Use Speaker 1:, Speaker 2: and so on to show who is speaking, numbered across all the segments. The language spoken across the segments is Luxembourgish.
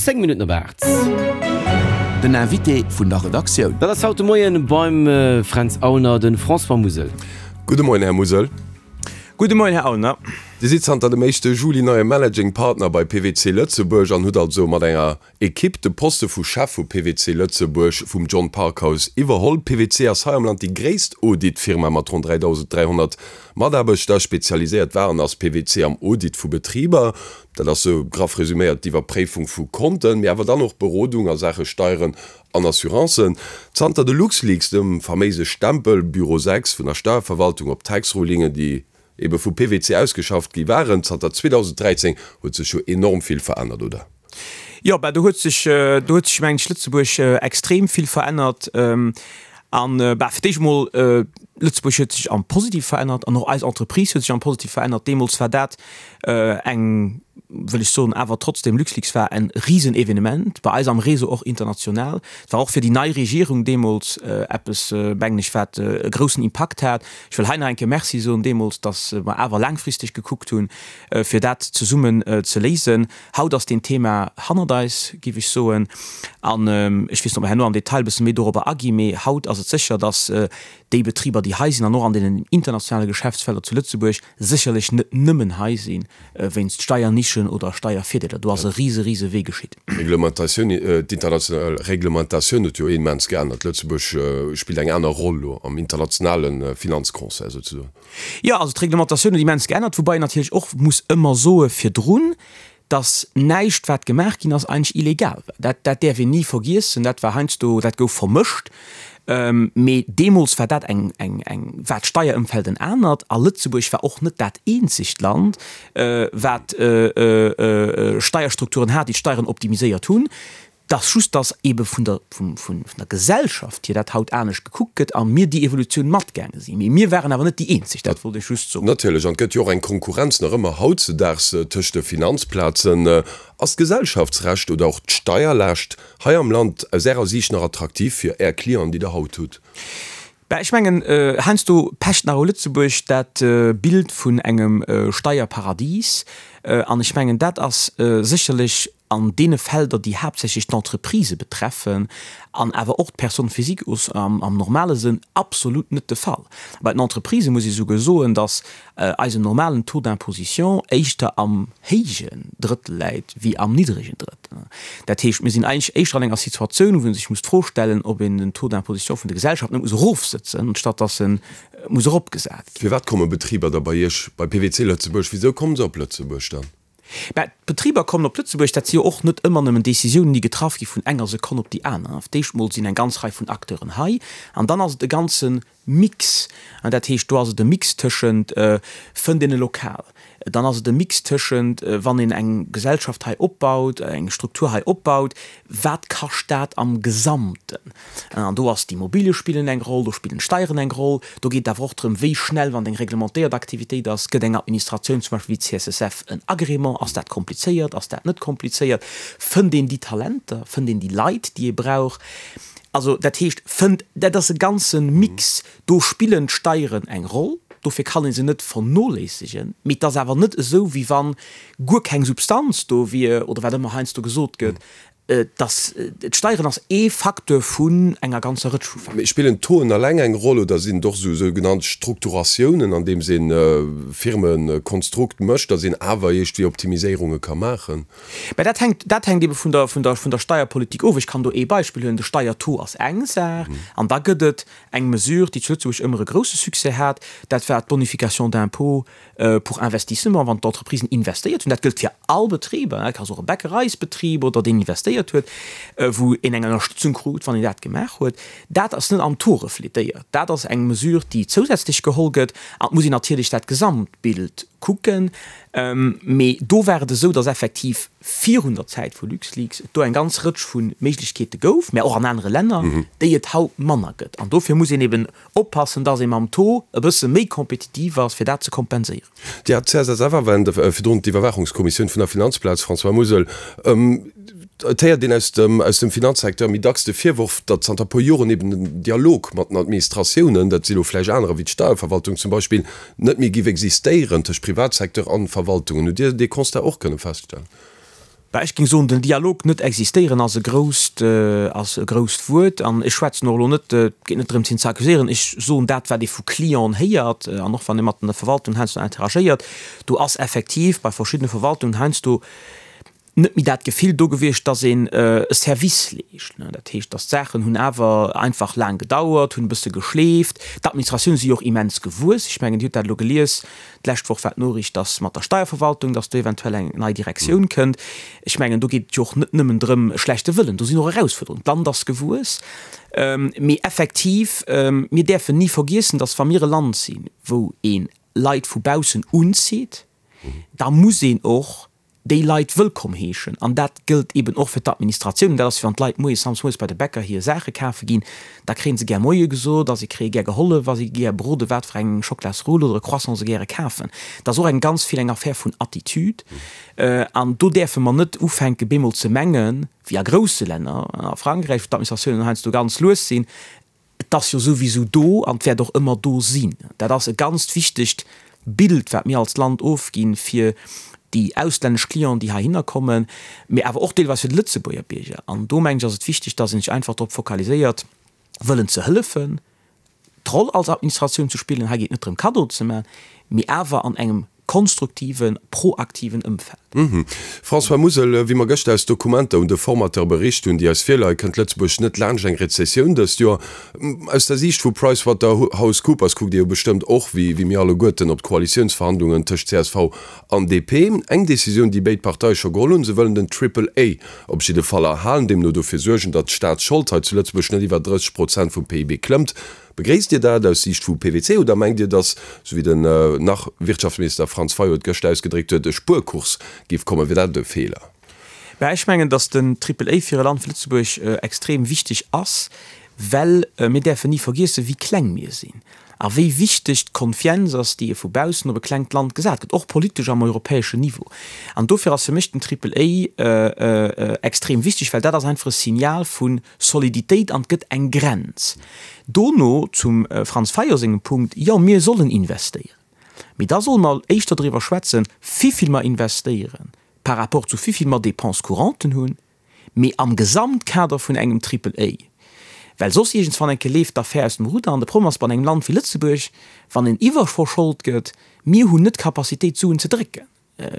Speaker 1: 10 Minutten op 8.
Speaker 2: Den Invité vun der Redaktioun.
Speaker 1: Dat ass haut de Moien beim Fränz Aulner de François Musel.
Speaker 3: Gudde Moien, Här Musel.
Speaker 4: Gudde Moien, Här Aulner.
Speaker 3: Dir sidd zanter dem éischte Juli neie Managing Partner bei PwC Lëtzebuerg an hutt also mat enger Ekipp de Poste vu Chef vu PwC Lëtzebuerg vum John Parkhouse iwwerholl. PwC ass hei am Land déi gréisst Audit-Firma mat ronn 3.300 Mataarbechter. Spezialiséiert war an ass PwC am Audit vu Betriber. Dat ass sou graff resuméiert d'Iwwerpréifung vu Konten, mee awer dann och Berodung a Saache Steieren an Assurancen. Zanter de LuxLeaks, dem faméise Stempel Büro 6 vun der Steierverwaltung op Tax-Rulingen, déi ebe vu PwC ausgeschafft gi waren, zanter 2013 huet sech jo enorm vill verännert, oder?
Speaker 4: Jo, bah do huet sech, do huet sech mengen ech Lëtzebuerg extrem vill verännert. An bah fir d'éischt emol, Lëtzebuerg huet sech am Positive verännert an och eis Entreprise huet sech am Positive verännert. Deemools war dat eng, wëll ech soen, awer trotzdem, LuxLeaks war en Risenevenement bei eis am Réseau, och international. Et war och fir déi nei Regierung deemools eppes, mengen ech, wat e groussen Impakt hat. Ech wëll hei nach eng Kéier Merci soen deemools, datt mer awer laangfristeg gekuckt hunn, fir dat zesummen ze léisen. Haut ass deen Thema hannert eis, géif ech soen. An ech weess net, ob mer herno am Detail e bësse méi dorobber aginn, mee haut ass et sécher, datt déi Betriber, déi hei sinn an och an deenen internationale Geschäftsfelder zu Lëtzebuerg, sécherlech net nëmmen hei si wéinst Steiernischen oder Steiervirdeeler. Do ass e rise, rise Wee geschitt.
Speaker 3: D'Reglementatioun, d'international Reglementatioun huet jo immens geännert. Lëtzebuerg spillt eng aner Roll elo am internationale Finanzconcert souzesoen.
Speaker 4: Jo, also d'Reglementatioun huet immens geännert, woubai een natierlech och muss ëmmer soe virdrun, dass näischt wat gemaach ginn ass eigentlech illegal war. Dat, dat däerf een ni vergiessen. Dat war heiansdo, dat gouf vermëscht, mee deemools war dat eng, eng, eng, war d'Steierëmfeld en anert a Lëtzebuerg war och net dat eenzegt Land, wat Steierstrukturen hat, déi d'Steieren optimiséiert hunn. 't ass just, dass eebe vun der, vum, vun der Gesellschaft hier dat haut anescht gekuckt gëtt a mir déi Evolutioun matgaange sinn. Mee mir waren awer net déi eenzeg, dat wollt ech just soen.
Speaker 3: Natierlech, an et gëtt jo och eng Konkurrenz nach ëmmer hautzedaags tëscht de Finanzplazen. Ass d'Gesellschaftsrecht oder och d'Steierlaascht hei am Land aus Ärer Siicht nach attraktiv fir Är Clienten, déi Der haut hutt?
Speaker 4: Bah, ech mengen, heiansdo pecht nach u Lëtzebuerg dat Bild vun engem Steierparadies. An ech mengen, dat ass sécherlech an deene Felder, déi haaptsächlech d'Entreprisë betreffen an awer och d'Personnes physiques am normale Sënn, absolut net de Fall. Bei den Entreprisë muss ee souguer soen, dass eisen normalen Taux d'imposition éischter am héijen Drëttel läit wéi am niddregen Drëttel. Dat heescht, mir sinn eigentlech éischter an enger Situatioun, wou ee sech muss d'Fro stellen, ob een den Taux d'imposition vun de Gesellschaften net muss erofsëtzen, anstatt dass e muss eropgesat ginn.
Speaker 3: Firwat komme Betriber da bei Iech, bei PwC Lëtzebuerg? Wisou komme se op Lëtzebuerg dann?
Speaker 4: Mä d'Betriber kommen op Lëtzebuerg, dat si jo och net ëmmer nëmmen Décisiounen, déi getraff gi vun enger Sekonn op déi aner. Fir d'éischt mol sinn eng ganz Rei vun Acteuren hei an dann ass et e ganze Mix. Dat heescht, do ass et e Mix tëschent, fënnt een e Lokal, dann ass et e Mix tëschent, wann een eng Gesellschaft hei opbaut, eng Struktur hei opbaut, wat kascht dat am Gesamten. An do ass d'Immobilie spillen eng Roll, do spillen d'Steieren eng Roll. Do geet et awer och drëm, wéi schnell, wann et eng reglementéiert Aktivitéit ass, gëtt eng Administratioun, zum Beispill wéi d'CSSF, en Agrément. Ass dat komplizéiert, ass dat net komplizéiert? Fënnt een déi Talenter, fënnt een déi Leit, déi ee brauch? Also dat heescht, fënnt, dat ass e ganze Mix. Do spillen d'Steieren eng Roll, dofir kann ee se net vernoléissegen. Mee et ass awer net esou, wéi wa guer keng Substanz do wier oder wat ëmmer heiansdo gesot gëtt, Dass d'Steieren ass ee Facteur vun enger ganzer Rëtsch vu
Speaker 3: Facteuren. Mee spillen d'Tauxen alleng eng Roll oder sinn et och esou sougenannt Strukturatiounen, andeems een Firmekonstrukt mécht, dass een awer iergdwéi Optimiséierunge ka maachen?
Speaker 4: Mä dat hänkt, dat hänkt ebe vun der, vun der, vun der Steierpolitik of. Ech kann do ee Beispill huelen, De Steiertaux ass eng Saach an da gëtt et eng Mesure, déi zu Lëtzebuerg ëmmer e grousse Succès hat, dat war d'Bonification d'impôt pour investissement, wann d'Entreprisen investéiert hunn, dat gëllt fir all Betriber, dat ass och e Bäckereisbetrib oder deen investéiert huet, wou een eng Ënnerstëtzung krut, wann een dat gemaach huet. Dat ass net am Taux refletéiert. Dat ass eng Mesure, déi zousätzlech geholl gëtt. An et muss een natierlech dat Gesamtbild kucken. Mee do war et esou, datt effektiv virun der Zäit vu LuxLeaks et do eng ganz Rëtsch vu Méiglechkeete gouf, mä och an anere Länner, déi et haut manner gëtt. An dofir muss een eben Oppassen, dass ee mam Taux e bësse méi kompetitiv ass, fir dat ze kompenséieren.
Speaker 3: Dir hat d'CSSF erwänt, virdrun d'Iwwerwaachungskommissioun vun der Finanzplaz, François Musel. Et héiert een aus dem, aus dem Finanzsecteur méi dacks de Virworf, datt zanter e puer Joren eben den Dialog mat den Administratiounen, dat si lo vläicht anerer wéi d'Steierverwaltung zum Beispill, net méi giff existéieren tëscht Privatsecteur an Verwaltungen. Hutt Dir dee Constat och kënne feststellen?
Speaker 4: Bah, ech géing soen, den Dialog net existéieren ass e grousst, ass e grousst Wuert. An ech schwätzen och elo net, et geet net drëms hien ze accuséieren, ech soen dat wat ee vu Clienten héiert an och wann ee mat der Verwaltung heiansdo interagéiert, do ass effektiv bei verschiddene Verwaltungen heiansdo net méi dat Gefill do gewiescht, dass een e Service leescht. Dat heescht, dass d'Saachen hunn awer einfach laang gedauert, hunn e bësse geschleeft. D'Administratioune si jo och immens gewuess. Ech mengen, Dir hutt dat elo gelies, d'lescht Woch war d'Noriicht, dass mat der Steierverwaltung, dass do eventuell eng nei Direktioun kënnt. Ech mengen, do geet et jo och net nëmmen drëm, e schlechte Wëllen, do sinn och Erausfuerderungen. D'Land ass gewuess. Mee effektiv, mir däerfen ni vergiessen, dass wa mir e Land sinn, wou ee Leit vu baussen unzitt, da muss een och déi Leit wëllkomm heeschen. An dat gëllt eben och fir d'Administratioun. Dat ass wéi wann d'Leit moies, samsdes moies bei de Bäcker hir Saache kafe ginn, da kréie se gär Moie gesot a si kréie gär gehollef a si gi gär beroden, wat fir eng Schoklasrull oder e Croissant se gäre kafen. Dat ass och eng ganz vill eng Affär vun Attitude. An do däerfe mer net ufänke bemol ze mengen, wéi a grousse Länner, a Frankräich, wou d'Administratiounen heiansdo ganz lues sinn, Et ass jo souwisou do an et wäert och ëmmer do sinn. Dat ass e ganzt wichtegt Bild, wat mir als Land ofginn, fir déi auslännesch Clienten, déi heihinner kommen, mee awer och deelweis fir de Lëtzebuerger Bierger. An do, mengen ech, ass et wichteg, dass ee sech einfach drop fokaliséiert, wëllen ze hëllefen, d'Roll als Administratioun ze spillen. Hei geet et net drëm, Kaddoen ze maachen, mee awer an engem konstruktiven, proaktiven Ëmfeld.
Speaker 3: François Musel, Wéi mer gëschter aus Dokumenter un de Formateur bericht hunn, déi eis virleien, kënnt Lëtzebuerg net laanscht eng Rezessioun dëst Joer. Aus der Siicht vu PricewaterhouseCoopers kuckt Dir jo bestëmmt och, wéi mir alleguerten, op d'Koalitiounsverhandlungen tëscht csv an DP. Eng Decisioun, déi béid Parteie scho geholl hunn, se wëllen den Triple A op jidde Fall erhalen, deemno dofir suergen, datt d'Staatsschold hei zu Lëtzebuerg net iwwer 30 Prozent vum PIB klëmmt. Begréisst Dir dat aus Siicht vu PwC oder mengt Dir, datt, sou wéi den Nach-Wirtschaftsminister Franz Fayot et gëschter ausgedréckt huet, e Spuerkurs géif kommen? Wier dat e Feeler?
Speaker 4: Mä ech mengen, datt den Triple A fir e Land wéi Lëtzebuerg extrem wichteg ass, well mir däerfen ni vergiessen, wéi kleng mir sinn a wéi wichteg d'Konfienz ass, déi e vu baussen op e klengt Land gesat gëtt, och politesch am europäeschen Niveau. An dofir ass fir mech den Triple A extrem wichteg, well dat ass einfach e Signal vu Soliditéit an et gëtt eng Grenz. Dono zum Franz Fayot sengem Punkt, Jo, mir sollen investéieren, mee da solle mer éischter driwwer schwätzen, wivill mer investéieren par rapport zu wivill mer Dépenses couranten hunn, mee am Gesamtkader vun engem Triple A. Well soss iergendswann eng Kéier leeft d'Affär aus dem Rudder. An de Problem ass bei engem Land wéi Lëtzebuerg, wann een iwwerverschold gëtt, mir hunn net d'Capacitéit d'Suen ze drécken.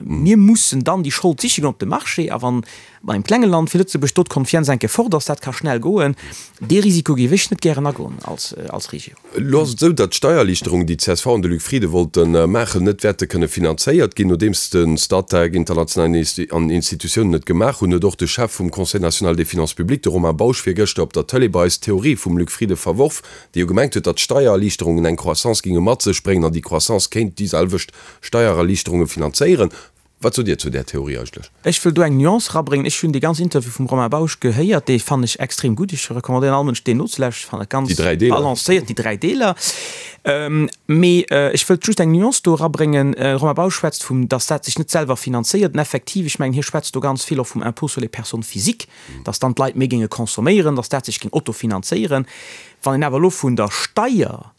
Speaker 4: Mir mussen dann déi Schold siche goen op de Marché. A wann bei engem klenge Land wéi Lëtzebuerg do d'Konfienz eng Kéier fort ass, dat ka schnell goen, dee Risiko géif ech net gären agoen als Regierung.
Speaker 3: Elo ass et esou, datt d'Steiererliichterungen, déi d'CSV an de Luc Frieden wollte maachen, net wäerte kënne finanzéiert ginn. Nodeems de Statec, international Institutiounen et gemaach hunn, huet och de Chef vum Conseil national des finances publiques, de Romain Bausch, virgëschter op der Tëlee bei eis d'Theorie vum Luc Frieden verworf, dee jo gemengt huet, datt d'Steiererliichterungen eng Croissance géinge mat sech bréngen an déi Croissance kéint déi selwecht Steiererliichterunge finanzéieren. Wat sot Dir zu där Theorie eigentlech?
Speaker 4: Ech wëll do eng Nuance erabréngen. Ech hunn dee ganzen Interview vum Romain Bausch gehéiert, dee fannen ech extrem gutt. Ech recommandéieren all Mënsch, deen nozelauschteren. Ech fannen et ganz balancéiert, déi 3 Deeler. Mee ech wëllt just eng Nuance do erabréngen. De Romain Bausch schwätzt vum, datt dat sech net selwer finanzéiert. An effektiv, ech mengen, hie schwätzt do ganz vill och vum Impôt sur les personnes physiques, datt dann d'Leit méi géinge consomméieren, datt dat sech géing autofinanzéieren. Wann een awer elo vun der Steier,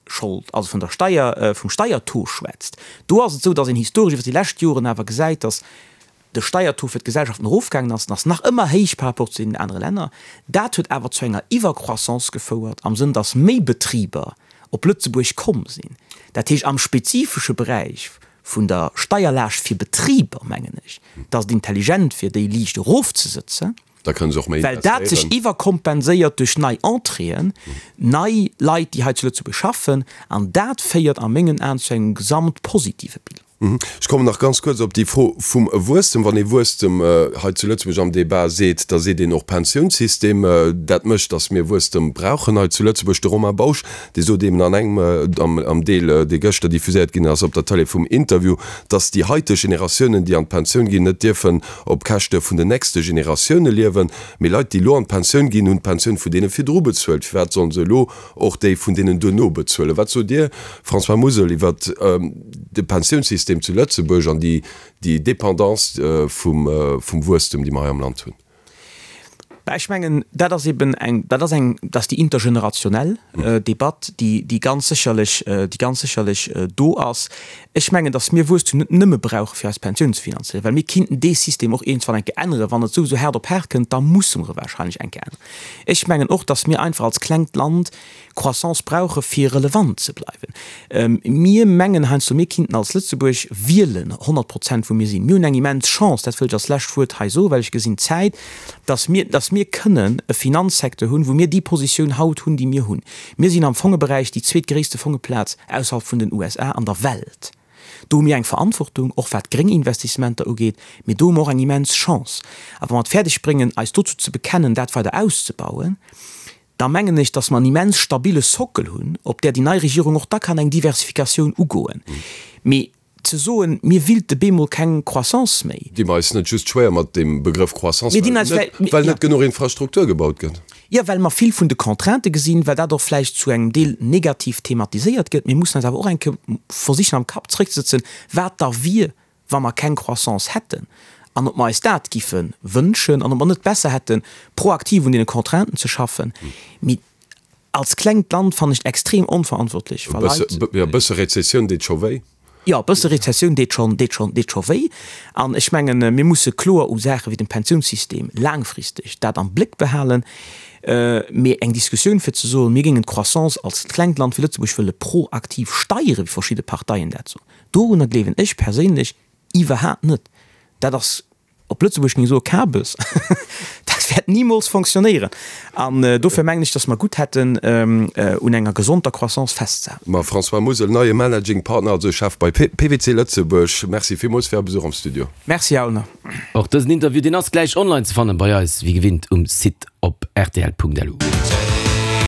Speaker 4: Schold, also vun der Steier, vum Steiertaux schwätzt, do ass et esou, datt een historesch iwwer déi lescht Joren awer gesäit, datt de Steiertaux fir d'Gesellschaften erofgaangen ass. En ass nach ëmmer héich par rapport zu deenen anere Länner. Dat huet awer zu enger Iwwercroissance gefouert, am Sënn, datt méi Betriber op Lëtzebuerg komm sinn. Dat heescht, am spezifesche Beräich vun der Steierlaascht fir Betriber, mengen ech, datt et intelligent wier, déi liicht erofzesëtzen.
Speaker 3: Da kënne se och méi
Speaker 4: Well dat sech
Speaker 3: investéieren.
Speaker 4: iwwerkompenséiert duerch nei Entréeën, nei Leit, déi hei zu Lëtzebuerg schaffen. An dat féiert a mengen Aen zu engem gesamt positive Bilan.
Speaker 3: Ech kommen nach ganz kuerz op déi Fro vum Wuesstem. Wann ee Wuesstem hei zu Lëtzebuerg am Débat seet, da seet een och Pensiounssystem. Dat mécht, datt mir Wuesstem brauchen hei zu Lëtzebuerg. De Romain Bausch, dee sot eeben an engem, am Deel, dee gëschter diffuséiert ginn ass op der Tëlee vum Interview, datt déi haiteg Generatiounen, déi an d'Pensioun ginn, net dierfen op Käschte vun den nächste Generatioune liewen. Mee Leit, déi elo an d'Pensioun ginn, hunn d'Pensioun vun deene virdru bezuelt. Firwat sollen se elo och déi vun deenen duerno bezuelen? Wat sot Dir, François Musel, iwwer de Pensiounssystem zu Lëtzebuerg an déi Dépendance vum Wuesstem, déi mer hei am Land hunn?
Speaker 4: Bah, ech mengen, dat ass eben eng, dat ass eng, dat ass déi intergenerationell Debatt, déi, déi ganz sécherlech, déi ganz sécherlech do ass. Ech mengen, datt mir Wuesstum net nëmme brauche fir eis Pensioun ze finanzéieren, well mir kinnten dee System och iergendwann eng Kéier änneren. Wann et souwisou haart op haart kënnt, da musse mer e wahrscheinlech eng Kéier änneren. Ech mengen och, datt mir einfach als klengt Land Croissance brauche fir relevant ze bleiwen. Mir mengen heiansdo, mir kinnten als Lëtzebuerg wielen 100 Prozent wou mir sinn. Mir hunn eng immens Chance, dat wëll ech als lescht Wuert hei soen, well ech gesinn d'Zäit, datt mir, datt mir kënnen e Finanzsecteur hunn, wou mir déi Positioun haut hunn, déi mir hunn. Mir sinn am Fongeberäich déi zweetgréisste Fongeplaz ausserhalb vun den USA an der Welt. Do hu mir eng Verantwortung, och wat gréng Investissementer ugeet, mee do hu mer och eng immens Chance. A wa mer et fäerdeg bréngen, eis dozou ze bekennen, dat weider auszebauen, da mengen ech, dass mer en immens stabile Sockel hunn, op där déi nei Regierung och da kann eng Diversifikatioun ugoen. Mee ze soen, mir willte bemol keng Croissance méi.
Speaker 3: Di mer eis net just schwéier mat deem Begrëff Croissance, well net genuch Infrastruktur gebaut gëtt?
Speaker 4: Jo, well mer vill vun de Contraintë gesinn, well dat och vläicht zu engem Deel negativ thematiséiert gëtt. Mir mussen eis awer och eng Kéier versichen am Kapp zréckzesëtzen, wat da wier, wa mer keng Croissance hätten an ob mer eis dat giffe wënschen an ob mer net besser hätten, proaktiv un deene Contrainten ze schaffen. Mee als klengt Land fannen ech et extrem onverantwortlech,
Speaker 3: wa Leit. Jo, e bësse Rezessioun deet scho wéi.
Speaker 4: Jo, e bësse Rezessioun deet schonn, deet schonn, deet scho wéi. An ech mengen, mir musse kloer u Saache wéi dem Pensiounssystem laangfristeg dat am Bléck behalen. Mee eng Diskussioun fir ze soen, mir géingen d'Croissance als klengt Land wéi Lëtzebuerg wëlle proaktiv steieren, wéi verschidde Parteien dat soen, Dorunner gleewen ech perséinlech iwwerhaapt net. Dat ass, op Lëtzebuergesch géing ech soen, Kabes. Dat wäert nimools fonctionnéieren. An dofir mengen ech, datt mer gutt hätten, un enger gesonter Croissance festzehalen.
Speaker 3: Ma François Musel, neie Managing Partner, also Chef bei PwC Lëtzebuerg, Merci villmools fir Är Besuch am Studio.
Speaker 4: Merci, Här Aulner.
Speaker 1: Och dësen Interview, deen ass gläich online ze fannen bei eis, wéi gewinnt um Site op rtl.lu.